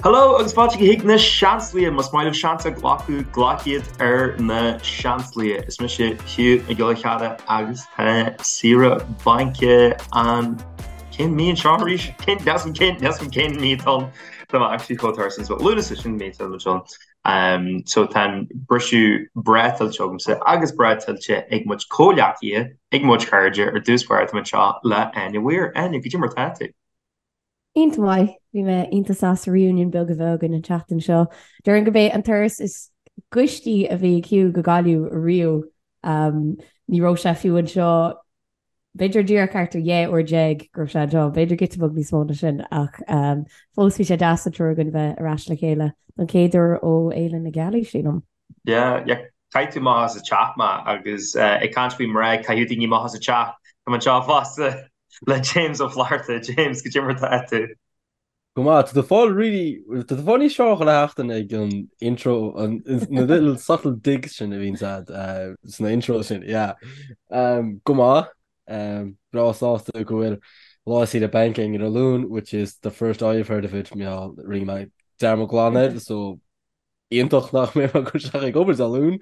Hello agus fáilte chuig na Seansálaithe, más maith libh seans a ghlacadh, glac iad ar na Seansálaithe. Is mise Hugh Mac Giolla Cheara agus tá saoire bainc an cén mí anseo arís? Cén cén cén cén mí atá ann? Tá mé actually chomh tuirseach so Lúnasa sin mí atá anseo. Um, so tá an briseadh breá tuillte agamsa agus breá tuillte ag mo chuid comhghleacaithe, ag mo chuid cairde ar dtús báire tá mé anseo le Áine Weir. Áine, goidé mar tá tú? Iontach maith. Bhí mé iontach sásta reunion beag a bheith againn an tseachtain seo. Déarfainn gurb é an turas is gaistí a bhí ag Hugh go Gaillimh riamh. Ní raibh sé fiú anseo, b'fhéidir díreach thart ar 12 uair go raibh sé anseo, b'fhéidir giota beag níos mó ná sin ach fós bhí sé deas an triúr againn bheith ar ais le chéile don chéad uair ó Fhéile na Gealaí, sílim. Yeah, yeah. Chaith tú amach as an teach mé agus ag caint faoi mná ag caitheamh daoine amach as an teach, tá mé anseo fosta le James Ó Flatharta. James, goidé mar tá tú? Go maith, tá tú fáil really, tá tú fáil níos fearr chuile sheachtain ag an intro, an, na little subtle digs sin a bhíonn agat sna intros sin, yeah. Um, go maith, um, breá sásta go bhfuil lá saoire bainc againn ar an Luan, which is the first I've heard of it, mar rinne mé dearmad glan air, so iontach nach mbeidh mé ag dul isteach ag obair Dé Luain.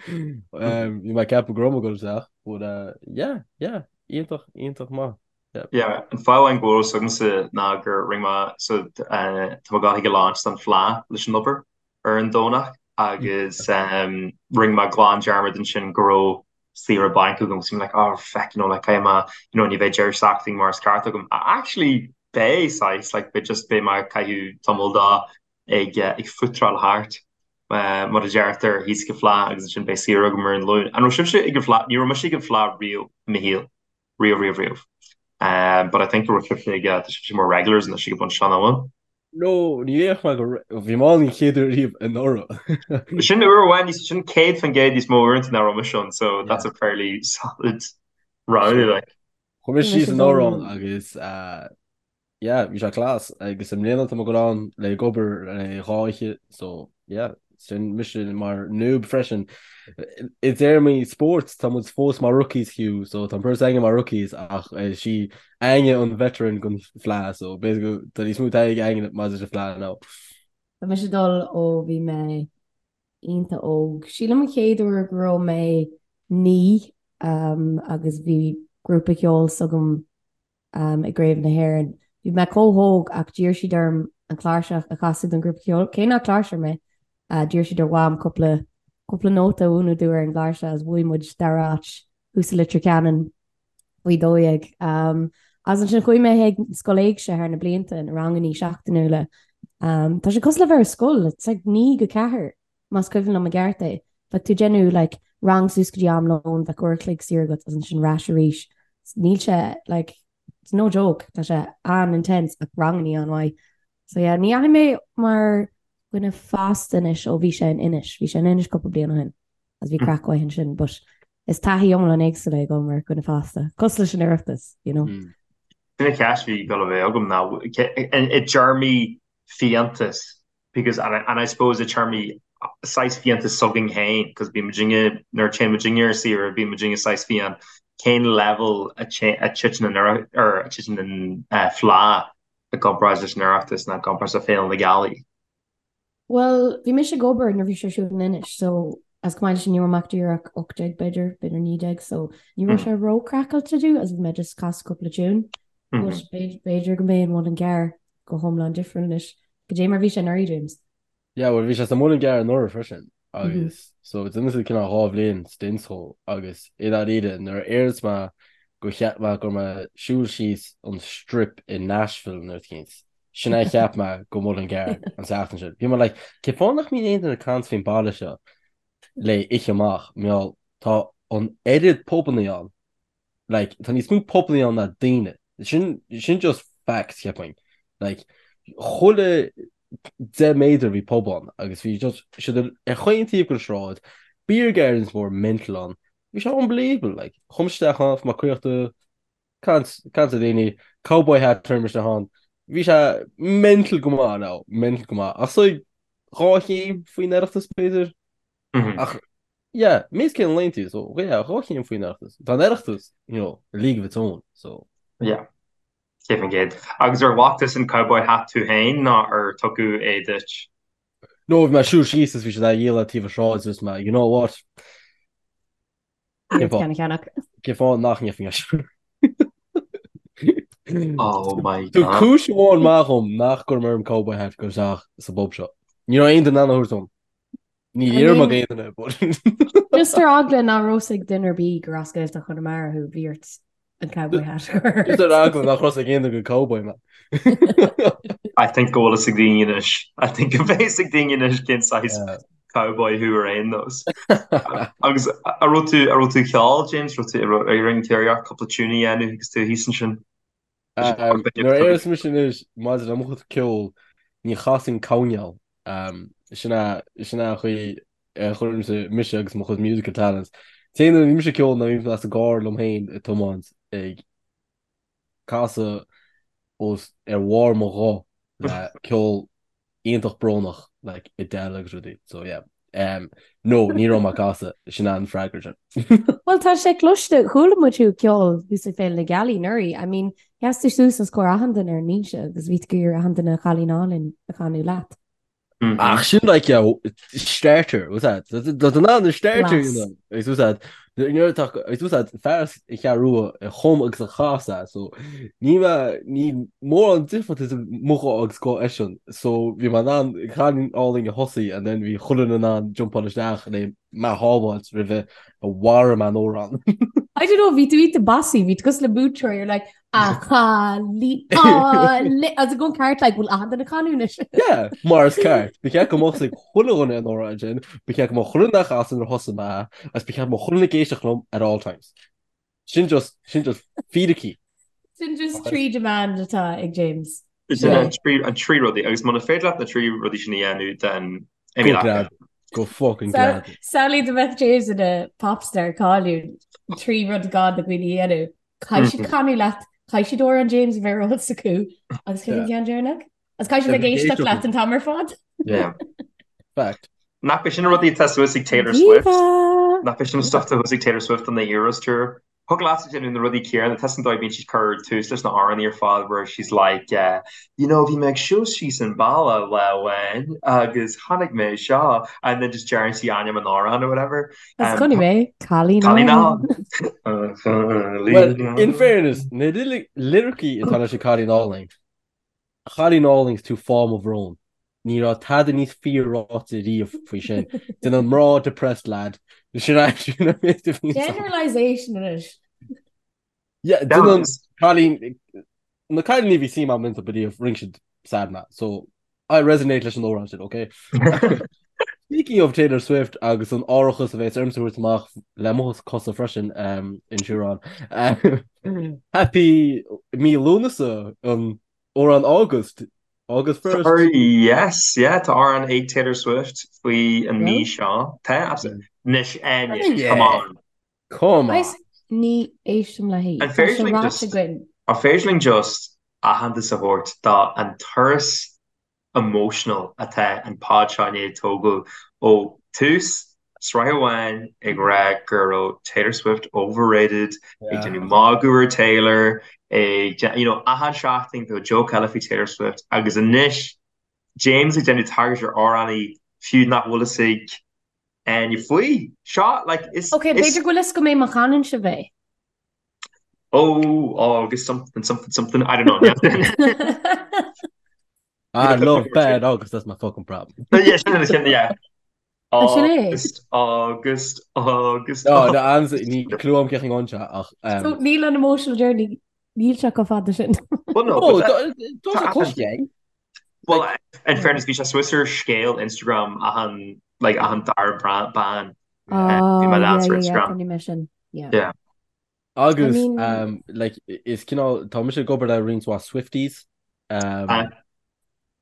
Bhí mé ag ceapadh go raibh mé ag dul isteach, but uh, yeah, yeah, iontach, iontach maith. Yeah. Yeah, an fáth amháin go bhfuil fhios agamsa ná gur rinne mé so uh, tá mé ag dul chuig an launch don Fleadh leis an obair ar an Domhnach agus um, rinne mé glan dearmad ansin go raibh saoire bainc agam so I'm like oh feck you know like caithfidh mé you know ní bheidh deireadh seachtaine mar is ceart agam. Actually beidh saghas like beidh just beidh mé ag caitheamh tamall dó ag ag footráil thart, mar a deirtear, thíos ag an Fleadh agus ansin beidh saoire agam ar an Luan. An raibh sibhse ag an Fleadh? Ní raibh mise ag an Fleadh riamh i mo shaol. Riamh, riamh, riamh. But I think go raibh sibhse ag, tá sibhse mar regulars anois ag an bpointe seo, nach bhfuil? No, ní dhéarfadh mé go, bhí mé ann an chéad uair riamh anuraidh. Sin uair amháin níos, sin 100% níos mó uaireanta ná raibh mise ann, so that's a fairly solid round, like. Chuaigh mé síos anuraidh ann agus Yeah, bhí sé class agus i mbliana tá mé ag dul ann le ag obair le dhá oíche so yeah, sin mise mar noob freisin. I dtéarmaí spóirt tá muid fós mar rookies Hugh so tá an bheirt againn mar rookies ach is í Áine an veteran den Fleadh so basically tá níos mó taithí ag Áine maidir leis an Fleadh ná. Tá mise ag dul ó bhí mé iontach óg. Sílim an chéad uair go raibh mé 9 agus bhí grúpa ceoil s'agam i gCraobh na hÉireann. Bhí mé chomh hóg ach d'iarr siad orm an chláirseach a chasadh don ghrúpa ceoil, cé nach cláirseoir mé. D'iarr siad ar Mham cúpla cúpla nóta a mhúineadh domh ar an gcláirseach agus bhuaigh muid dara háit thuas i Leitir Ceanainn faoi 12. Agus ansin chuaigh mé chuig scoil éigse thar na blianta, na rangannaí seachtainiúla. Tá sé cosúil le bheith ar scoil, it's like 9 go 4. más cuimhin liom i gceart é. Bheadh tú ag déanamh like rang suas go dtí am lóin, bheadh uair a chloig saor agat agus ansin ar ais arís. Níl sé like it's no joke, tá sé an-intense ach rangannaí an-mhaith. So yeah, ní dheachaigh mé mar dhuine fásta anois ó bhí sé in Inis, bhí sé in Inis cúpla bliain ó shin agus bhí craic mhaith ansin but is taithí iomlán éagsúil é ag dul mar dhuine fásta, cosúil leis an Oireachtas, you know. Sin an cheist a bhí ag dul a bheith agam ná i dtéarmaí fiántas because and I, and I suppose i dtéarmaí saghas fiántas s'againn féin because bíonn muidinne nuair a téann muidinne ar saoire bíonn muidinne saghas fiáin cén level a titeann an or a titeann an uh, Fleadh i gcomparáid leis an Oireachtas nó i gcomparáid le Féile na Gealaí? Well, bhí mise ag obair nuair bhí sé ar siúl in Inis, so as chomh maith leis sin ní raibh mé ach díreach 18 b'fhéidir, b'fhéidir 19, so ní raibh sé ró-craiceáilte domh as bhí mé just casadh cúpla tune. But b'fhéidir go mbeidh an Muileann gCearr go hiomlán difriúil anois. Goidé mar bhí sé anuraidh, James? Yeah, well bhí sé sa Muileann gCearr anuraidh freisin agus so d'imigh siad cineál dhá bhliain stint dhó agus i ndáiríre nuair a éireos mé go cheap mé go raibh mé ag siúl síos an strip i Nashville nó rud eicínt. Sin é a cheap mé go Muileann gCearr an tseachtain sin. Bhí mé like cén fáth nach mbíonn aon duine ag caint faoin baile seo le oíche amach mar gheall tá an oiread pubannaí ann Like, tá níos mó pubannaí ann ná daoine. Sin, sin just facts, cheapfainn. Like, chuile 10 méadar bhí pub ann agus bhí just siad ar chaon taobh den sráid, beer gardens mór mental ann. Bhí sé unbelievable, like, chuaigh mise isteach ann, bhí mé caochta, caint, caint le daoine, cowboy hat chuir mise isteach ann. Bhí sé mental go maith now, mental go maith. Ach so, dhá chéim faoin Oireachtas b'fhéidir? Ach Yeah, meas cén léann tú, so yeah, dhá chéim faoin Oireachtas. Tá an Oireachtas, you know, a league of its own, so. Yeah, 100%. Agus ar ghlac tusa an cowboy hat tú féin nó ar tugadh é duit? No, bhí mé ag siúl síos is bhí siad á dhíol ar taobh an sráid is mé, you know what? Cén fáth? Ceannach. Cén fáth nach ndéanfainn é sin? Oh my Tá God. cúis amháin maith agam nach gcuirim orm cowboy hat go isteach sa bpub seo. Ní raibh aon duine in ann a thabhairt dom. Ní I iarraim mean- ag aon duine, but Just ar eagla nach raibh fhios ag duine ar bith gur as Gaeltacht Chonamara thú, bhí ort an cowboy hat a chur. Just ar eagla nach raibh fhios ag aon duine gur cowboy mé. I think go bhfuil fhios ag daoine anois. I think go bhfuil fhios ag daoine anois cén saghas Yeah. cowboy thú ar aon nós. Agus an raibh tú an raibh tú ag ceol, James, raibh tú ar an chéireach cúpla tune a dhéanamh agus tú thíos ansin? Um, Nuair a éireos mise anois maidir le mo chuid ceoil, ní chasainn coirnéal. Um, sin é sin é an chaoi a chuirimse mise agus mo chuid musical talents. Téann nuair a bhí mise ag ceol ná bhí mé sa gcarr liom féin ag tiomáint ag casadh os ar bharr mo ghuth le ceol iontach brónach like Adele agus rudaí so yeah um, no ní raibh mé ag casadh sin an freagra sin. Bhuel tá sé cloiste chuala muid thú ag ceol thuas ag Féile na Gealaí anuraidh I mean sheas tú suas os comhair achan duine ar an mbinse agus bhí tú ag iarraidh achan duine Cailín Álainn a chanadh leat. Ach sin like yeah, starter was that Tá an an starter you know agus was that nuair atá agus was that fear as an Cheathrú Rua a chum agus a chas é so ní mé ní mórán difríocht idir mo ghuth agus guth eisean so bhí mé in ann Cailín Álainn a thosaí and then bhí chuile dhuine in ann jumpáil isteach le mé a shábháilt roimhe a mharaigh mé an amhrán. I don't know, bhí tú iontach bossy, bhí tú cosúil le múinteoir, you're like, A chailín álainn agus go ceart like bhfuil achan duine ag canadh anois. Yeah, mar is ceart. Ba cheart go mbeadh ag chuile dhuine an amhrán sin, ba cheart go mbeadh chuile dhuine ag casadh nuair a thosaigh mé agus ba cheart go mbeadh chuile dhuine ag éisteacht liom at all times. Sin just, sin just fíricí. Sin just trí demand atá ag James. Sin an trí rudaí agus muna féidir leat na trí rudaí sin a dhéanamh then imigh leat. Go fucking glad. Samhlaigh dá mbeadh James ina popstar cáiliúil, trí rud gá do dhaoine a dhéanamh. Caithfidh siad canadh leat, caithfidh siad amhrán James a bheith ar eolas acu agus cén ceann deireanach? Agus caithfidh siad bheith ag éisteacht leat an t-am ar fad. Yeah. Fact. Nach b'é sin na rudaí atá suas ag Taylor Swift? Nach b'é sin an stuff atá thuas ag Taylor Swift on the Eras Tour? Thig leat a déanamh na rudaí céanna, tá an dóigh a bíonn siad cur tús leis na hamhráin ar fad where she's like uh, you know bhí mé ag siúl síos an bealach lá amháin agus chonaic mé seo and then just deireann sí ainm an amhráin or whatever. Is chonaic mé Cailín Álainn. Well, in fairness, na liricí atá leis an Cailín Álainn, A chailín álainn is tú fáth mo bhróin. Ní raibh tada níos fíor ráite riamh faoi sin. Déanann mná depressed lad. Sin é sin an méid a bhíonn ann. Generalisation anois. Yeah, déanann cailín na cailíní a bhí suim agam iontu riamh rinne siad sad mé. So I resonate leis an amhrán sin, okay? Speaking of Taylor Swift agus an árachas a bheas ormsa a thabhairt amach le mo cosa freisin um, insurance. Um, happy mí Lúnasa an amhrán August August 1st. Sorry, yes, yeah, tá amhrán ag Taylor Swift faoi an mí seo. Tá, absolutely. Anois, Áine, come on. Come on. Ní éistim léi. An féidir linn just, an féidir linn just aitheantas a thabhairt do an turas emotional atá an pod seo i ndiaidh tógáil ó tús sraith amháin ag rá go raibh Taylor Swift overrated, ag déanamh magadh ar Taylor, ag you know achan seachtain bheadh joke eile faoi Taylor Swift agus anois James ag déanamh tagairt ar amhránaí fiú nach bhfuil fhios ag Áine faoi seo like is Ok, b'fhéidir go bhfuil fhios agam é má chanann sibh é. Oh, August something something something I don't know. I love bad August, that's my fucking problem. Yeah, sin sin yeah. Sin é. August, August, August. No, no, ans ní clue agam cén amhrán seo ach um, So níl an emotional journey níl sé chomh fada sin. Well, no, Oh, but tá tá sé cloiste. Well, in fairness, bhí sé suas ar scéal Instagram achan like achan dara bean. Oh, Bhí mé yeah, leans ar yeah, yeah, Instagram. chonaic mé sin. Yeah. Yeah. Agus I mean- um, like, is cineál tá mise ag obair le roinnt mhaith Swifties. Um, Ah.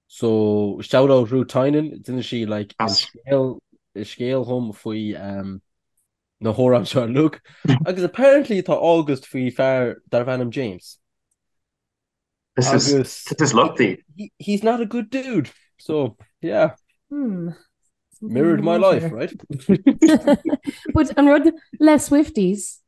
so shout out Ruth Tynan, d'inis sí like, an As. scéal an scéal dhom faoi um, na hamhráin seo uilig. Agus apparently tá August faoi fear darbh ainm James. This is Agus this is lucky. he, he's not a good dude. So yeah, Hmm. Something mirrored in the my life, water. right? But an rud le Swifties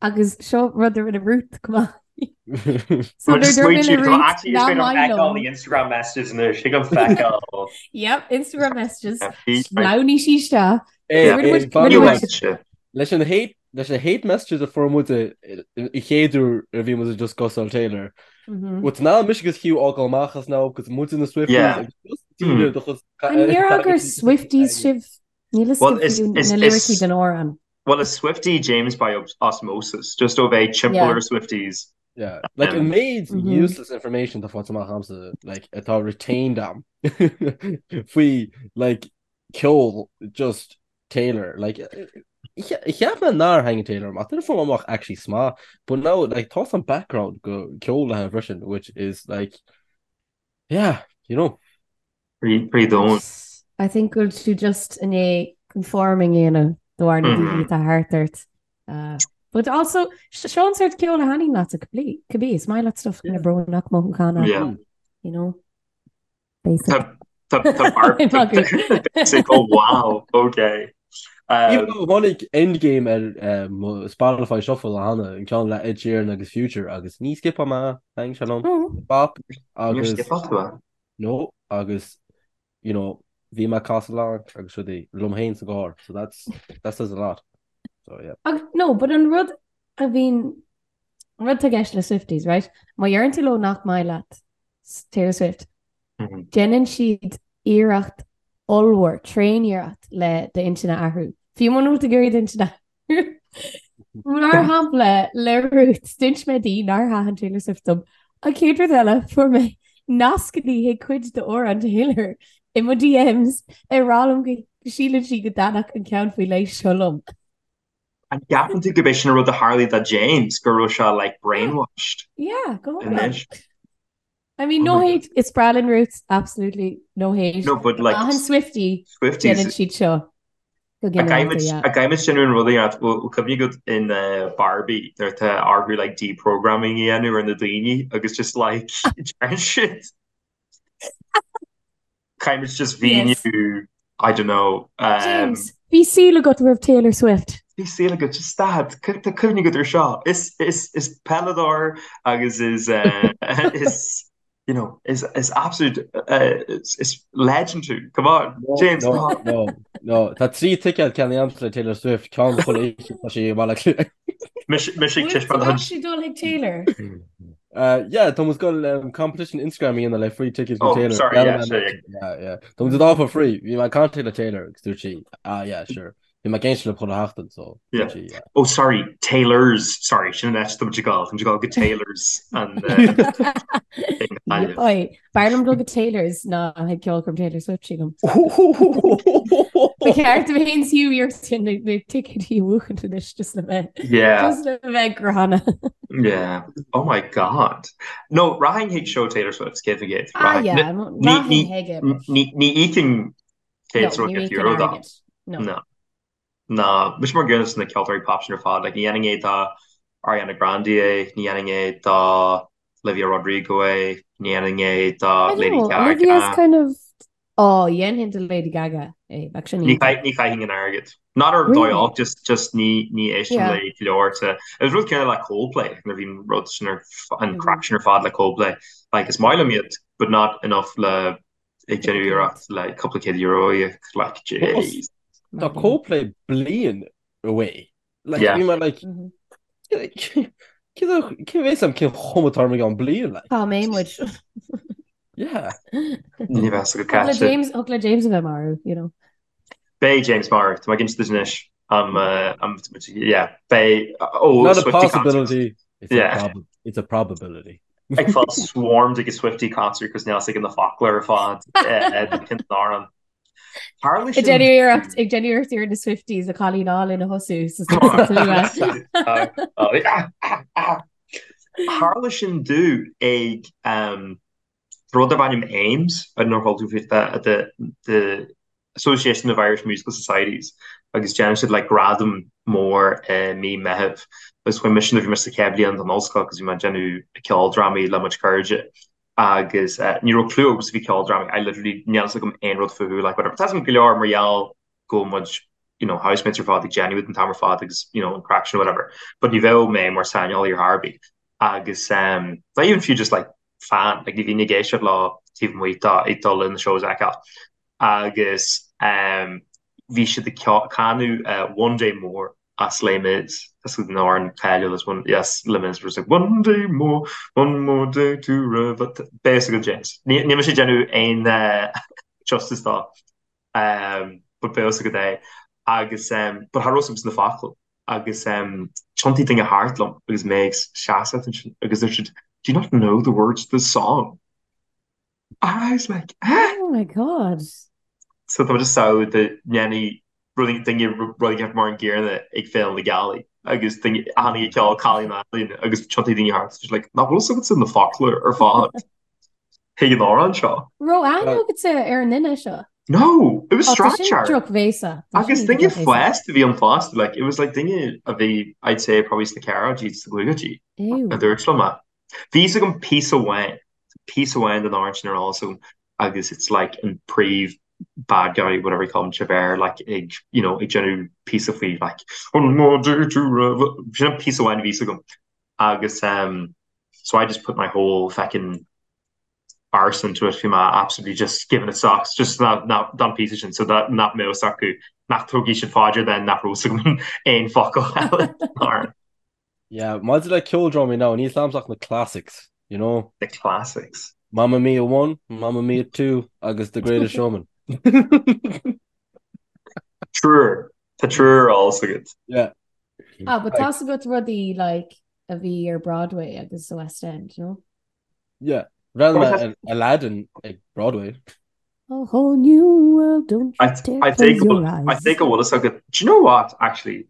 agus seo rud a rinne Ruth chomh maith. So nuair a dúirt mé le Ruth nach maith liom. Instagram messages anois, thig liom feiceáil. Yep, Instagram messages. Sleamhnaigh sí isteach. Leis an hate leis na hate messages a fuair muid an chéad uair a bhí muid ag discussáil Taylor. Bhuel ná mise agus Hugh fhágáil amach as now agus muid na Swifties Yeah. agus just daoine do chus An ndéarfá gur Swifties sibh? Níl fhios Well, agam is- fiú is- na lyricí is- den amhrán. Well, is Swiftie James by osmosis, just ó bheith timpeall Yeah. ar Swifties. Yeah, like an méid Mhm. useless information atá faighte amach agamsa like atá retained am faoi like ceol just Taylor like cheap mé nár thaitnigh Taylor amach duine fuair amach actually sma but now like tá some background go ceol le freisin which is like yeah you know Pretty domhain. I think go bhfuil tú just i ndiaidh conforming a dhéanamh de bharr na daoine atá thart ort. Uh, but also, seo an sort ceol a thaitníonn leat cibé, is maith leat stuff kind of brónach mothúchánach, Yeah. you know? Basic. Tá tá tá bar basic oh wow okay. Even Um, though tháinig Endgame ar um, Spotify Shuffle a cheana an ceann le Ed Sheeran agus Future agus ní skipáil mé thaitnigh sé liom Oh. bop Níor agus skipáil tú é? No agus you know bhí mé ag casadh along agus rudaí liom féin sa gcarr so that's that says a lot. So yeah. Ach no, but an rud a bhíonn an rud atá i gceist le Swifties, right? Má dheireann tú leo nach maith leat Taylor Swift, Mhm. déanann siad iarracht ollmhór, tréaniarracht le d'intinn a athrú. Fiú muna bhfuil tú ag iarraidh d'intinn a athrú. Mar shampla, le Ruth, d'inis mé di nár thaitin Taylor Swift dom. An chéad rud eile, fuair mé nascanna chuig cuid d'amhráin Taylor i mo DMs ag rá liom go síleann sí go dtaitneodh an ceann faoi leith seo liom. An gceapann tú gurb é sin an rud a tharlaigh do James, go raibh sé like brainwashed? Yeah, go hiomlán. Anois. I mean, no hate, is breá linn Ruth, absolutely, no hate. No, but like, Achan Swiftie, Swifties, déanann siad seo go ginearálta, yeah. A gcaithfimid sin an rud a dhéanamh, bhfuil cuimhne agat in Barbie nuair atá orthu like deprogramming a dhéanamh ar na daoine agus just like deireann siad Caithfimid just mhíniú, I don't know. Um, James, bhí saol agat roimh Taylor Swift. Bhí saol agat, just stad, tá cuimhne agat ar seo. Is, is, is peileadóir agus is, uh, is, you know, is, is absolute, uh, is, is legend tú. Come on, No, James, no, come on. no, no. Tá 3 ticéad ceannaithe agamsa le Taylor Swift, ceann chuile oíche tá sí i mBaile Átha Cliath. Mise mise ag Bhfuil tú taispeáint an actually dul chuig Taylor? Uh, yeah, tá muid ag goil um, competition Instagram a dhéanamh le free tickets go Oh, Taylor. sorry, Yeah, yeah, man, sure, yeah. yeah, yeah. Tá muid ag for free. Bhí mé ag caint le Taylor agus dúirt sí, ah yeah, sure. Bhí mé ag éisteacht le chuile sheachtain, so Yeah. dúirt sí, yeah. Oh, sorry, Taylor's. Sorry, sin an áit tá muid ag gabháil. Tá muid ag gabháil go Taylor's an uh, thing Gaillimh. Oi, b'fhearr liom dul go Taylor's ná chuig ceolchoirm Taylor Swift sílim. Ba cheart dom féin is Hugh iarracht sin na na ticéidí a bhuachaint anois just le bheith Yeah. just le bheith gránna. Yeah. Oh my God. No, rachainn chuig seó Taylor Swift, 100%. Ah Rachainn. yeah, Ní rachainn ní chuige but ní ní íocfainn no, 100 ní íocfainn euro dó. airgead. No. No. Ná, mise mar an gcéanna leis na ceoltóirí pop sin ar fad, like ní dhéanfainn é do Ariana Grande é, ní dhéanfainn é do Olivia Rodrigo é, ní dhéanfainn é do I don't Lady know, Olivia's Gaga. kind of Oh, dhéanfainn do Lady Gaga é, bheadh sin Ní iontach. ní chaithfinn an airgead. Not ar dóigh Really? olc, just just ní ní éistim Yeah. le go leor te. Is rud céanna le Coldplay, nuair a bhíonn rud sin ar an Mhm. craic sin ar fad le Coldplay. Like is maith liom iad, but not enough le ag déanamh iarracht le cúpla céad euro a íoc, like jeez. Tá Coldplay bliain away. Like, Yeah. bhí mé like, Mhm. cé bheas am cén chuma atá orm i gceann bliain, like. Cá mbeidh muid? Yeah. Ní bheas go Thig le caite. James, thig le James a bheith marbh, you know. Beidh James marbh, tá mé ag insint duit anois. Um, uh, um, yeah, beidh, oh, Not a Swiftie concert. possibility, it's a Yeah. prob it's a probability. Ag fáil swarmed ag a Swiftie concert cos níl a fhios aige na focla ar fad cén t-amhrán. Tharla Ag sin déanamh iarracht, ag déanamh iarracht ar na Swifties a cailín álainn a thosú sa slua. Tharla sin domh ag rud darb ainm AIMS, I don't know ar chuala tú faoi the the Association of Irish Musical Societies agus déanann siad like gradam mór i mí Meitheamh agus chuaigh mise nuair a bhí mise sa chéad bhliain den ollscoil agus bhí mé ag déanamh ceoldrámaí le mo chuid cairde agus ní raibh clue agamsa faoi ceoldrámaí, I literally níl fhios agam aon rud fúthu like whatever. Tá fhios agam go leor mar gheall go bhfuil muid you know housemates ar fad ag déanamh an t-am ar fad agus you know an craic sin whatever but ní bheadh mé mar saineolaí ar chor ar bith. Agus not even fiú just like fan, like ní bhínn ag éisteacht leo taobh amuigh de ag dul leis na shows a fheiceáil. Agus bhí siad ag canadh One Day More as Les Mis, as an amhrán cáiliúil as one, yes, Les Mis, where it's like one day more, one more day to rev, beidh a fhios agat James. Níl mise ag déanamh aon justice dó. But beidh a fhios agat é. Agus but cha raibh a fhios agam na focail agus tiontaigh duine thart liom agus mé ag seasamh ansin agus dúirt siad, Do you not know the words to the song? And I was like, eh? Oh my God. So tá just samhail dá ndéanfaidh rudaí duine rud éigin mar an gcéanna ag Féile na Gealaí agus duine a tháinig ag ceol Cailín Álainn agus tiontaigh daoine thart just like, nach bhfuil a fhios agatsa na focla ar fad chuig an amhrán seo. Raibh aithne agatsa ar an duine seo? No, it was Oh, tá sin strainséir. drochbhéasa. Tá sin Agus duine iontach drochbhéasa. fásta a bhí ann fosta, like, it was like duine a bhí, I'd say, probably sna ceathrachaidí, sna caogaidí, Ew. a dúirt liom é. Bhí fhios agam píosa amháin, píosa amháin den amhrán sin ar eolas agam agus it's like an príomh bad guy, whatever you call him, Javert, like ag, you know, ag déanamh píosa faoi like one more day to rev-, sin an píosa amháin a bhí fhios agam agus um, so I just put my whole feckin' arse into it, bhí mé absolutely just giving it socks, just ná, ná, don píosa sin, so that nach mbeadh fhios acu, nach dtógfaidh siad faoi deara then nach raibh fhios agam aon focal eile den amhrán. Yeah, maidir le ceoldrámaí now, níl 's a'msa ach na classics, you know? The classics. Mamma Mia 1, Mamma Mia 2 agus The Greatest Showman. Triúr. Tá triúr ar eolas agat. Yeah. Ah, but tá 's agat rudaí like a bhí ar Broadway agus sa West End, no? Yeah. Bhreathnaigh mé ar Aladdin ag Broadway. A whole new world, don't you dare I close your eyes. I think go bhfuil fhios agat. Do you know what, actually?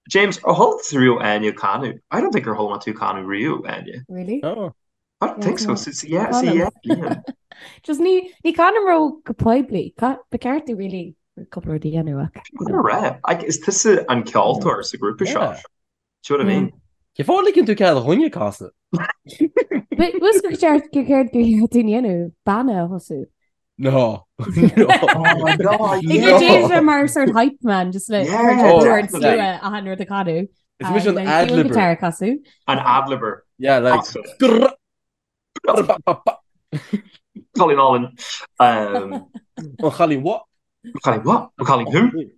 James, ar chuala tusa riamh Áine ag canadh? I don't think gur chuala mé tú ag canadh riamh, Áine. Really? No. I don't think so. So, so, yeah, so, yeah, yeah. Just ní ní chanaim ró go poiblí. Ba ceart domh really cúpla rud a dhéanamh ach. Go raibh. Like, is tusa an ceoltóir sa grúpa seo. Do you know what I mean? Cén fáth a ligeann tú cead do dhuine casadh? Bhfuil gur ceart gur ceart gur ceart dúinn dhéanamh banna a thosú. No. Oh my God, yeah. James bheith mar sort hype man just le Yeah, oh, definitely. achan rud a canadh. Is mise an ad-libber. Guitar casadh. An ad-libber. Yeah, like Awesome. Cailín álainn. Um, An chailín what? Cailín what? Cailín who?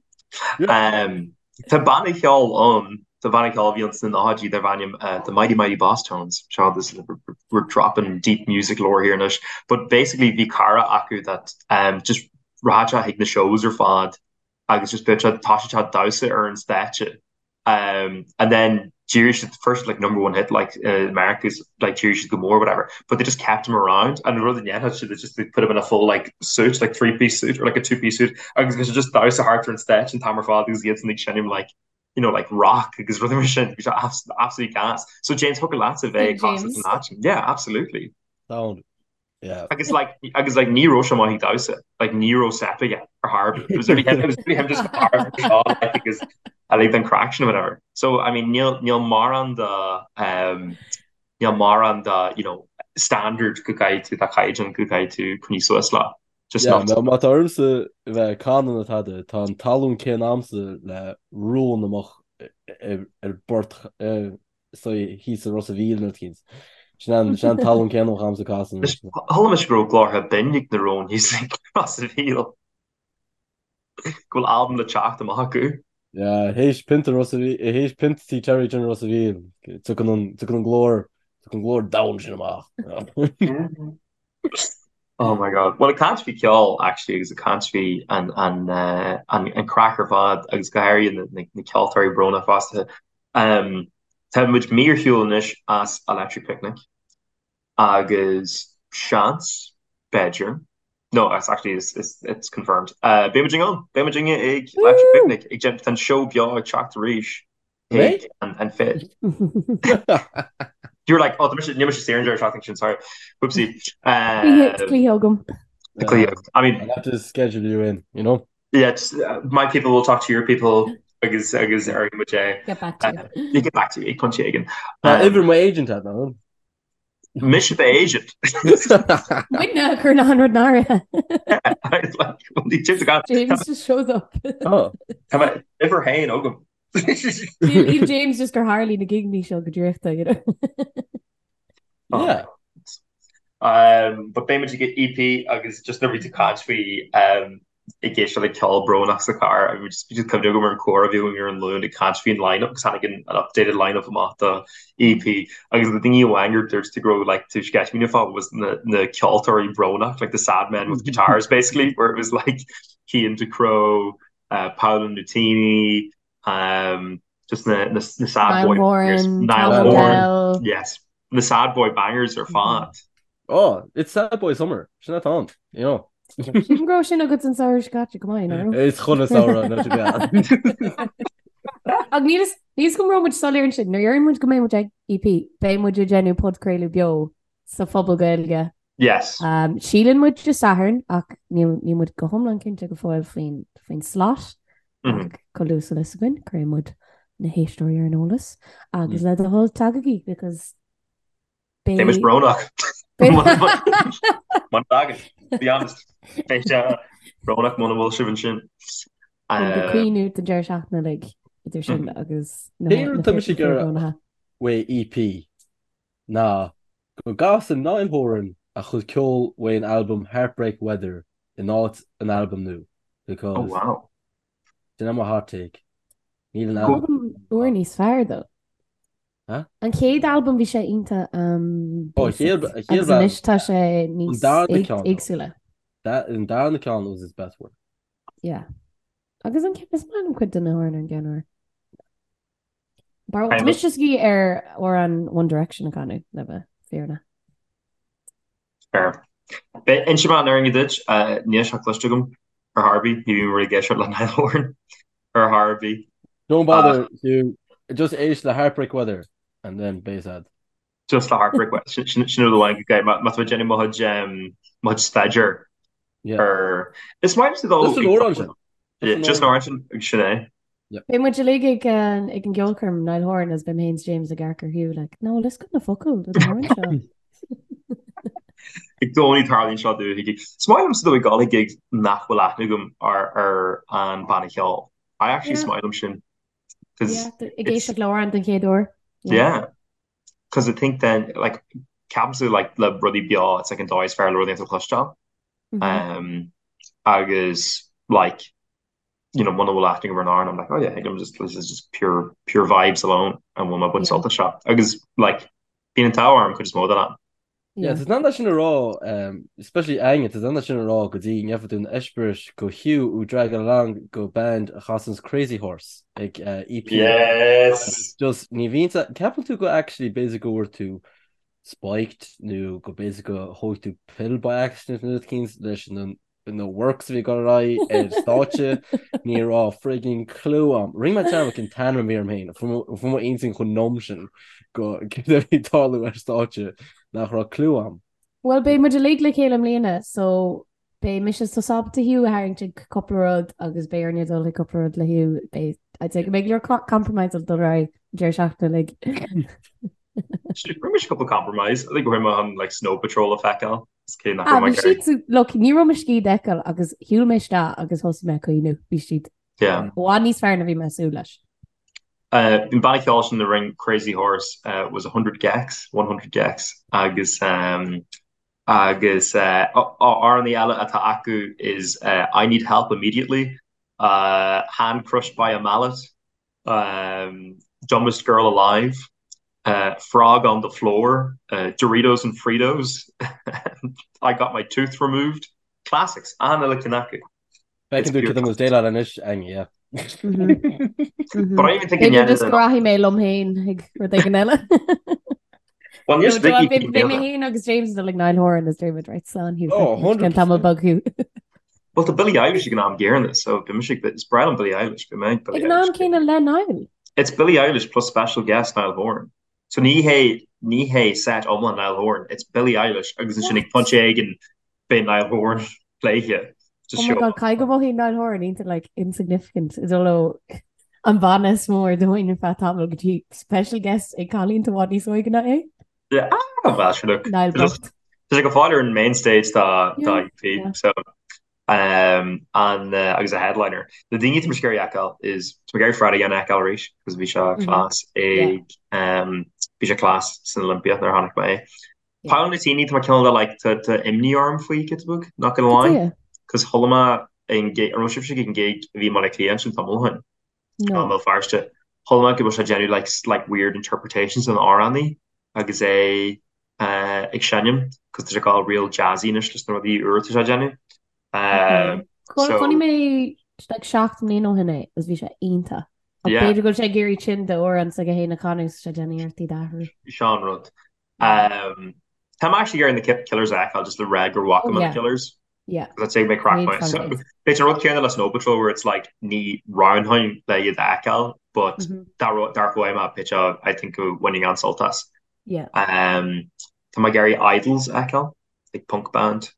Um, tá banna ceoil ann, tá banna ceoil a bhí ann sna nóchaidí darb ainm uh, The Mighty Mighty Bosstones. Seo this we're dropping deep music lore here anois. But basically bhí cara acu that um, just rachadh sé chuig na shows ar fad agus just bheadh sé tá sé damhsa ar an stáitse Um, and then d'éirigh siad first like number one hit like uh, America's like d'éirigh siad go mór whatever but they just kept him around and rud a dhéanfadh siad is just they put him in a full like suit like three piece suit or like a two piece suit agus bhí sé just damhsa thart ar an stáitse an t-am ar fad agus iad san ag seinm like you know like rock agus rudaí mar sin bhí sé absolutely gas so James thiocfadh leatsa bheith ag casadh san áit yeah absolutely Sound. Yeah. Agus like agus like ní raibh sé maith ag damhsa like ní raibh step aige ar chor ar bith. It was really him, it was really him just like because I like an craic sin or whatever. So I mean níl níl mórán de um, níl mórán de you know standard go gcaithfidh tú de chaighdeán go gcaithfidh tú coinneáil suas le. Just Yeah, not má má tá ormsa bheith ag canadh nó tada, tá an talún céanna a'msa le rón amach ar ar bport so thíos i Ros a' Mhíl nó thíos. Sin an sin an talún céanna a bheadh a'msa casadh. Chuala mise go raibh glórtha binn ag na róin thíos i Ros a' Mhíl. Go bhfuil albam le teacht amach acu. Yeah, théis pionta Ros a' Mhíl, théis pionta Tí Terry sin Ros a' Mhíl, tiocfaidh an tiocfaidh an glór, tiocfaidh an glór domhain sin amach. Oh my God. Well, ag caint faoi ceol, actually, agus ag caint faoi an an an an craic ar fad agus go háirithe na na na ceoltóirí brónach fosta. Um, tá muid mí ar shiúl anois as Electric Picnic agus seans, b'fhéidir, no, it's actually, it's, it's, it's confirmed. Uh, beidh muid ann, beidh muid ag Electric Picnic, ag déanamh, tá an seó beo ag teacht arís Mé? chuig an, an fit. You were like, oh, tá mise, níl mise saor an deireadh seachtaine sin, sorry. Whoopsie. Cluiche Um, cluiche agam. cluiche, I mean, I'll have to schedule you in, you know? Yeah, just, uh, my people will talk to your people agus agus ar muid é. Get back to you. You get back to me ag pointe éigin. Tá Um, uimhir mo agent agat ná? Mise do agent. Muidne chur na hanrad náire. Like, well, ní James got James just shows up. Oh. Tá mé uimhir haon agam. Níl James just gur tharlaigh na gigeanna seo go draíochta, you know. Yeah. Um, but beidh muid ag EP agus just nuair a bhí tú ag caint faoi um, ag éisteacht le ceol brónach sa charr agus just bhí cuimhne agam ar an comhrá a bhí againn ar an Luan ag caint faoin line-up agus tháinig an an updated line-up amach do EP agus na daoine amháin gur dúirt tú go raibh like tú sceitimíneach fá was na na ceoltóirí brónach like the sad men with guitars basically where it was like Cian Ducrot, uh, Paolo Nutini, um, just na, na, na sad boy bangers. Niall Horan, yes. Na sad boy bangers ar fad. Oh, it's sad boy summer. Sin atá ann, you know. Sílim go raibh sin agat an samhradh seo caite go maith, nó? Is chun an samhradh nó go Ach níl a fhios agam an raibh muid soiléir ansin, nuair a deireann muid go mbeidh muid ag EP, beidh muid ag déanamh podchraoladh beo sa Phuball Gaeilge. Yes. Um, síleann muid Dé Sathairn ach níl níl muid go hiomlán cinnte go fóill faoin faoin slot mm -hmm. ach chomh luath is a bheas fhios againn, cuirfidh muid na héisteoirí ar an eolas agus mm. le do thoil tagaigí because Beidh muid brónach. Muna dtagann, be honest. Beidh sé brónach muna bhfuil sibh ansin. Ag caoineadh don deireadh seachtaine uilig idir sin mm. agus na Tá mise ag iarraidh uaidh EP ná go gcasann Niall Horan a chuid ceoil uaidh an albam Heartbreak Weather in áit an albam nua because Oh wow. Sin é mo hot take. Níl an albam Albam úr níos fearr though. Huh? An chéad albam bhí sé iontach um, Oh, basic chéad- chéad agus albam. anois tá sé níos An darna ceann, though. éagsúla. That an darna ceann was his best work. Yeah. Agus an ceann is maith liom cuid de na hamhráin ar an gceann úr. Tá mise just ag iarraidh amhrán One Direction a chanadh le bheith fírinneach. Fair. Beidh inseoidh mé an fhírinne duit, níl sé cloiste agam ar chor ar bith, ní bhím ag éisteacht le Niall Horan ar chor ar bith. Don't bother, Hugh. Just éist le Heartbreak Weather and then beidh a fhios a'd. Just le Heartbreak Weather. Sin sin rud amháin go gcaithfidh má tá mé ag déanamh mo chuid mo chuid staidéir ar Is maith liomsa dul Just an amhrán sin. Just an amhrán sin agus sin é. Beidh muid uilig ag ag an gceolchoirm Niall Horan agus beidh mé féin is James ag amharc ar Hugh like no bhfuil fhios agat na focail don amhrán seo. I gcónaí tarlaíonn seo domh ag Is maith liomsa dul ag dul ag gigs nach bhfuil aithne agam ar ar an banna ceoil. I actually is maith liom sin. Cause Ag éisteacht le amhrán den chéad uair. Yeah. Cause I think then like ceapaimse like le rudaí beo it's like an dóigh is fearr le rudaí a chloisteáil. Um, agus like you know muna bhfuil aithne agam ar an amhrán I'm like oh yeah I'm just this is just pure pure vibes alone and bhfuil mé ag baint sult as seo. Agus like bíonn an t-ádh orm cuid is mó den am. Yeah, tá an sin a rá, um, especially Aine, tá an sin a rá go dtí ngeobhaidh tú an eispéireas go Hugh ú drag along go band a chasanns Crazy Horse ag uh, EP. Yes! Just ní bhíonn ceapann tú go actually b'fhéidir go bhfuair tú spiked nó go b'fhéidir go thóg tú pill by accident nó rud eicínt leis na na works a bhí ag dul ar aghaidh ar stáitse, ní raibh frigging clue a'm. Rinne mé dearmad cén t-ainm a bhí orm féin, fuair mo intinn chomh numb sin go céard a bhí ag tarlú ar stáitse nach raibh clue a'm. Bhuel, beidh muid uilig le chéile i mbliana, so beidh mise is tusa ábalta Hugh a tharraingt ag cúpla rud agus beidh orainne dul ag cúpla rud le Hugh. Beidh, I'd say go mbeidh go leor compromise ag dul ar aghaidh an deireadh seachtaine uilig. Rinne mise cúpla compromise, I think go raibh mé chun like Snow Patrol a feiceáil. Ah, bhí siad, look, ní raibh mo scíth d'fheiceáil agus shiúil mé isteach agus thosaigh mé ag caoineadh. Bhí siad i bhfad níos fearr ná bhí mé ag súil leis. An banna ceoil sin a rinne Crazy Horse was 100 gecs, 100 gecs, agus agus amhránaí eile atá acu is I Need Help Immediately, Hand Crushed by a Mallet, Dumbest Girl Alive, Frog on the Floor, Doritos and Fritos, I Got My Tooth Removed, Classics, an-uile ceann acu. Feiceann tú cad é mo déileáil anois, Aine, yeah. But I even think in B'fhéidir just go rachaidh mé liom féin ag rud éigin eile. Well, níos Vicky Beidh mé féin agus James ag dul ag Niall Horan is David Wright slán Hugh. Oh, 100%. Tamall beag Hugh. Well, tá Billie Eilish ag an am gcéanna, so bhí mise ag is breá liom Billie Eilish, bhí mé ag Billie Ag an am Eilish. céanna le Niall. It's Billie Eilish plus special guest Niall Horan. So ní hé ní hé set iomlán Niall Horan, it's Billie Eilish agus ansin ag pointe éigin beidh Niall Horan léithe. Just Oh my God, caithfidh go mothaíonn Niall Horan iontach like insignificant ag dul ó an banna is mó ar domhan ar feadh tamaill go dtí special guest ag cailín atá i bhfad níos óige ná é. Yeah, ah, well, sure, look. Niall bocht. Tá sé go fóill ar an main stage dá dá Yeah, EP, yeah. so um, an uh, agus a headliner. Na daoine atá mise ag iarraidh a fheiceáil is tá mé ag iarraidh Fred again a fheiceáil arís, because bhí sé Mhm. class Yeah. ag um, bhí sé class san Olympia nuair a chonaic mé é. Paolo Nutini tá mé cineál de like tá tá imní orm faoi giota beag, not gonna lie. Cos chuala mé an gig, an raibh sibhse ag an gig a bhí i mBaile Átha Cliath ansin tamall ó shin? No. I mBéal Feirste. Chuala mé go bhfuil sé ag déanamh like like weird interpretations den amhránaí agus é ag seinm cos tá sé ag dul real jazzy anois leis na rudaí úra atá sé ag déanamh. Okay. So Chonaic mé like 7 mbliana ó shin é agus bhí sé iontach. Ach b'fhéidir go bhfuil sé ag iarraidh sin d'amhrán s'aige féin a chanadh so sé ag déanamh iarrachtaí d'athrú. Seo an rud. Tá mé actually ag iarraidh na Killers a fheiceáil just le rá gur bhfaca mé na Killers. Yeah. Because I'd say mé crack point. So b'fhéidir an rud céanna le Snow Patrol where it's like ní roghnóinn le iad a fheiceáil but dá roghnódh mé b'fhéidir I think go bhainfinn an-sult as. Yeah. Tá mé ag iarraidh Idles a fheiceáil, like punk band.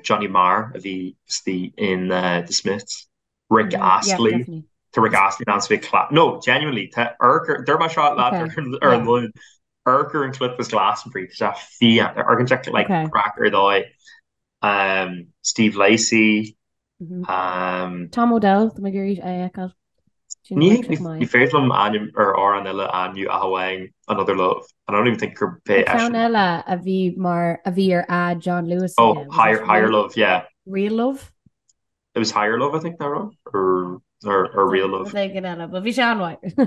Johnny Marr a bhí istigh in The Smiths. Rick Astley. Tá Rick Astley in ann bheith class. No, genuinely, tá amharc, dúirt mé seo leat ar an Luan, amharc ar an clip as Glastonbury, tá sé fiáin, amharcann sé like craic ar dóigh. Steve Lacy. Tom Odell, tá mé ag iarraidh é a fheiceáil. Ní féidir liom ainm ar amhrán eile a ainmniú ach amháin Another Love. And I don't even think gur pé Ceann eile a bhí mar a bhí ar ad John Lewis. Oh, Higher Love, yeah. Real Love? It was Higher Love, I think, nach raibh? Or, or, or Real Love. Rud éigin eile, but bhí sé an-mhaith.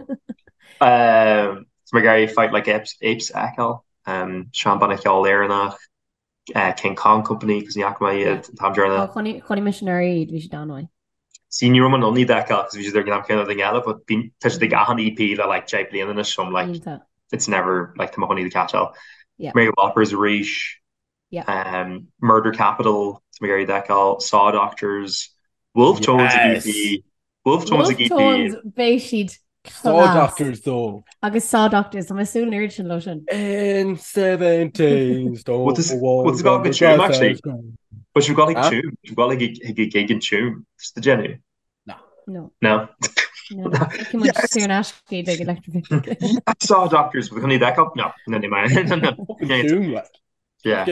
Um, tá mé ag iarraidh Fight Like Apes, Apes a fheiceáil. Um, seanbhanna ceoil Éireannach, uh, King Kong Company, cos ní fhaca mé iad an t-am deireanach. Oh, chonaic chonaic mise anuraidh iad, bhí siad an-mhaith. See, ní raibh mé in ann iad a fheiceáil, cos bhí siad ar an am céanna duine eile, but bíonn, tá siad ag achan EP le like 10 bliana anois, so I'm like, Iontach. it's never, like, tá mé chun iad a catcháil. Yeah. Mary Whoppers arís, Murder Capital, tá mé ag iarraidh iad a fheiceáil, Saw Doctors, Wolfe Tones ag EP, Wolfe Tones ag EP. Wolfe Tones, beidh siad class. Saw Doctors though. Agus Saw Doctors, tá mé ag súil an oiread sin leo sin. In 17 stone What's what's got ag Tuam actually? But you've got like Tuam, you've got like a gig in Tuam, just the Jenny. No. No. No. No. Feicfidh muid saor in aisce iad ag Electric Picnic. Saw Doctors, we're going to need that cup? No, no, no, no, no. Tuam, like. Yeah.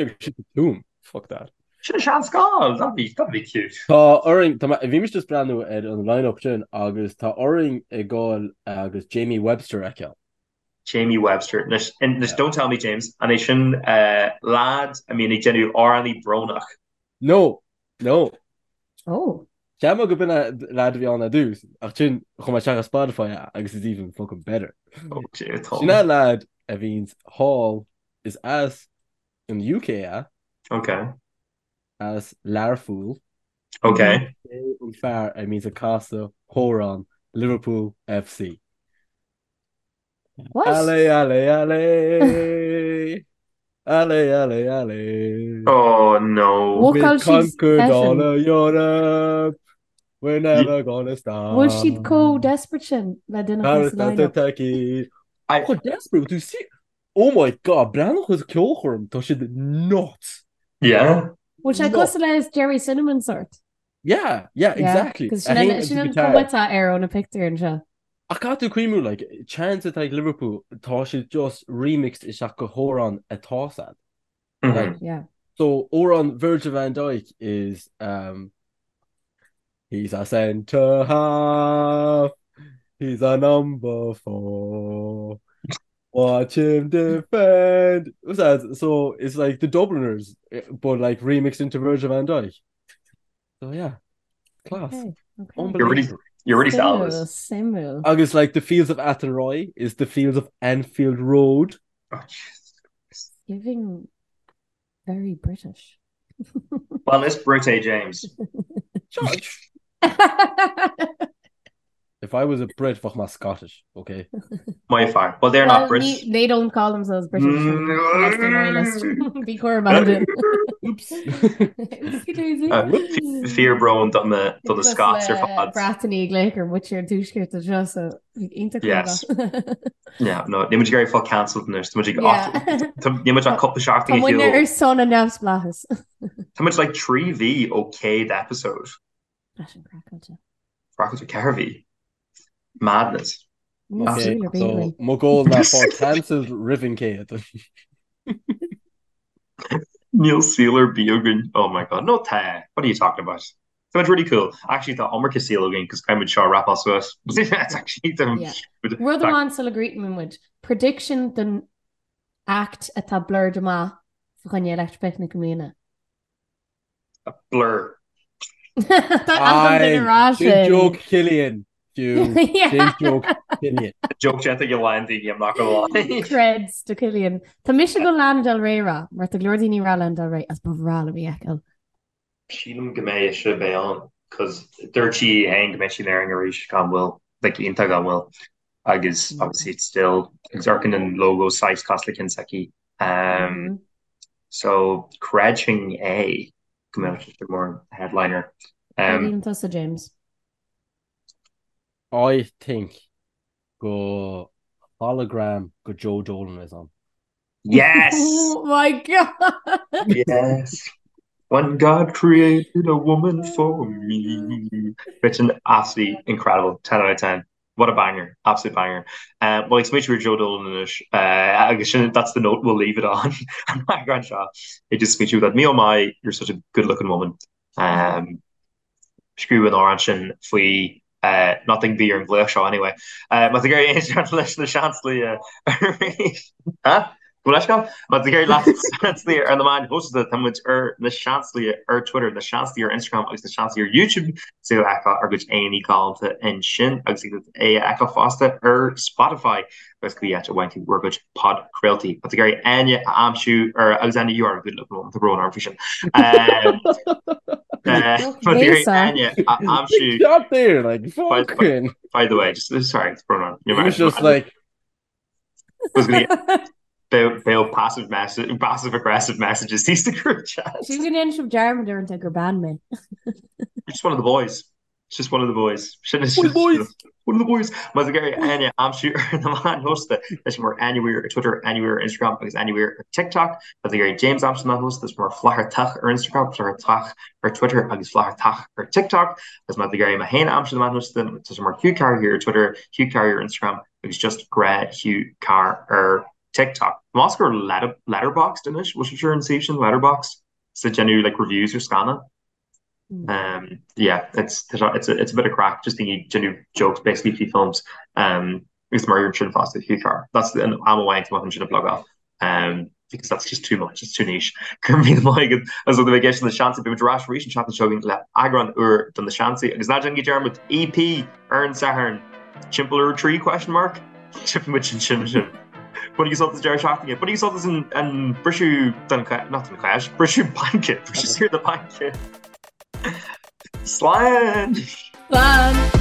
Tuam. Fuck that. Sin a seanscoil, that'd be, that'd be cute. Tá orainn, tá mé, bhí mise just breathnú ar an line-up sin agus tá orainn ag gabháil agus Jamie Webster a fheiceáil. Jamie Webster. Anois, anois don't tell me James, an é sin lad a mbíonn ag déanamh amhránaí brónach? No, no. Oh. Cheap mé go b'in é lad a bhí ann ar dtús, ach sin chuaigh mé isteach ar Spotify agus it's even fucking better. Oh, Tom. Sin é lad a bhíonns thall is as an UK é. Ok. As Learpholl. Ok. É an fear a mbíonns ag casadh amhrán Liverpool FC. What? Allez, allez, allez. Allez, allez, allez. Oh no. We've Bhfuil siad conquered all special? of Europe. We're never gonna stop. Bhfuil siad chomh desperate sin le duine a chur sa line-up? Turkey. I- Chomh desperate, do see? Oh my god, breathnaigh ar an ceolchoirm, tá siad nuts. Yeah. Bhfuil sé cosúil le Gerry Cinnamon sort? Yeah, yeah, exactly. Cos sin an cuma atá air ó na pictiúir anseo. Ach caithfidh tú cuimhniú, like, chants atá ag Liverpool, tá siad just remixed isteach go hamhrán atá sad. Like, Yeah. so amhrán Virgil van Dijk is um, He's a centre half, he's a number four. Watch him defend. What's that? So it's like the Dubliners, eh, but like remixed into Virgil van Dijk. So yeah, class. Okay, okay. You're really, Unbelievable. you're really selling Suimiúil, this. suimiúil. Agus like the Fields of Athenry is the Fields of Anfield Road. Oh, Jesus Christ. Giving very British. Well, is Brit é James. Judge. If I was a Brit, bheadh mé Scottish, okay? My fear. Well, they're not Well, Brits. ní, they don't call themselves British unless they're loyalist. Bí cúramach ansin. Oops. Oopsie daisy. Fíor brón do na do na Scots ar fad. Breatanaigh ag glaoch ar mhuintir an tuaiscirt anseo, so iontach Yes. cúramach. Yeah, no, níl muid ag iarraidh fáil cancelled anois, tá muid ag Yeah. níl muid ach cúpla seachtain Tá ag muidne shiúl. ar son an neamhspleáchais. Tá muid like 3 mhí ó 100 episode. Tá sin craiceáilte. Craiceáilte 4 mhí. Madness. Níl Okay, saol ar bith so againn. mo goal ná fáil cancelled roimh an 100. Níl saol ar bith againn. Oh my god. No tá. What are you talking about? Tá muid really cool. Actually tá iomarca saol againn cos caithfidh muid seo a wrapáil suas. It's actually Yeah. Rud amháin sula gcríochnaíonn muid. Prediction don Act atá blurred amach fa choinne Electric Picnic i mbliana? Blur. Tá an duine rá sin. Joke Killian. Fiú. Joke Killian. Joke déanta ag a lán daoine, I'm not gonna lie. Creds do Killian. Tá mise ag dul Lana Del Rey a rá, mar tá go leor daoine ag rá Lana Del Rey agus ba bhreá liom í a fheiceáil. Sílim go mbeidh ise beidh ann, cos dúirt sí féin go mbeidh sí in Éirinn arís gan mhoill, like iontach gan mhoill. Agus obviously it's still, agus amharcann an logo saghas cosúil le ceann s'aici. Um, so creidfinn é go mbeadh sé mar headliner. Um, Cad tusa James? I think go hologram go Joe Dolan is ann. Yes! Oh my God! Yes! When God created a woman for me. Which an absolutely incredible 10 out of 10. What a banger, absolute banger. Uh, well, ag smaoitiú ar Joe Dolan anois uh, agus sin that's the note we'll leave it on. An eagrán seo ag just smaoitiú that me oh my, you're such a good looking woman. Um, Scríobh an amhrán sin faoi nothing bhí ar an ghlaoch seo anyway. Má tá tú ag iarraidh éisteacht leis na Seansálaithe arís. Huh? Go leithscéal? Má tá tú ag iarraidh leis na Seansálaithe ar na meáin shóisialta, tá muid ar na Seansálaithe ar Twitter, na Seansálaithe ar Instagram agus na Seansálaithe ar YouTube. Is féidir a fheiceáil ár gcuid aghaidheanna galánta ansin agus é a fheiceáil fosta ar Spotify agus cibé áit a bhfaigheann tú bhur gcuid podchraoltaí. Má tá tú ag iarraidh Áine a aimsiú ar agus Áine you are a good looking woman, tá brón orm faoi sin. Má tá tú ag iarraidh Áine a aimsiú Stop there, like, fucking. By the way, just sorry, it's brón orm. It was just like was gonna Beidh passive message, passive aggressive messages thíos sa group chat. Sílim go ndéanann sibh dearmad uaireanta gur bean mé. You're just one of the boys. It's just one of the boys. Sin is One of the boys. One of the boys. Má tá tú ag iarraidh Áine a aimsiú ar na meáin shóisialta, tá sí mar Áine Weir ar Twitter, Áine Weir ar Instagram agus Áine Weir ar TikTok. Má tá tú ag iarraidh James a aimsiú ar na meáin shóisialta, tá sé mar Flathartach ar Instagram, Flathartach ar Twitter agus Flathartach ar TikTok. Agus má tá tú ag iarraidh mé féin a aimsiú ar na meáin shóisialta, tá sé mar Hugh Carr here ar Twitter, Hugh Carr ar Instagram agus just grá Hugh Carr ar TikTok. Más gur Letterboxd anois, bhfuil sibh ar an suíomh sin Letterboxd? Is ag déanamh like reviews ar scannáin. Um, yeah, it's, it's, a, it's a bit of craic, just daoine déanamh jokes basically faoi films. Um, agus mar ar sin fosta Hugh Carr. That's an am amháin tá sin a blogáil. Um, because that's just too much, it's too niche. Go raibh míle maith agat as ucht a bheith ag éisteacht le Na Seansálaithe beidh muid ar ais arís an tseachtain seo chugainn le eagrán úr de Na Seansálaithe agus ná déanaigí dearmad EP ar an Satharn timpeall ar 3 question mark Tchífidh muid ansin sibh. Bainigí sult as deireadh seachtaine. Bainigí sult as an an briseadh den not den cháis, briseadh baince, briseadh saor na baince. Slán! Slán!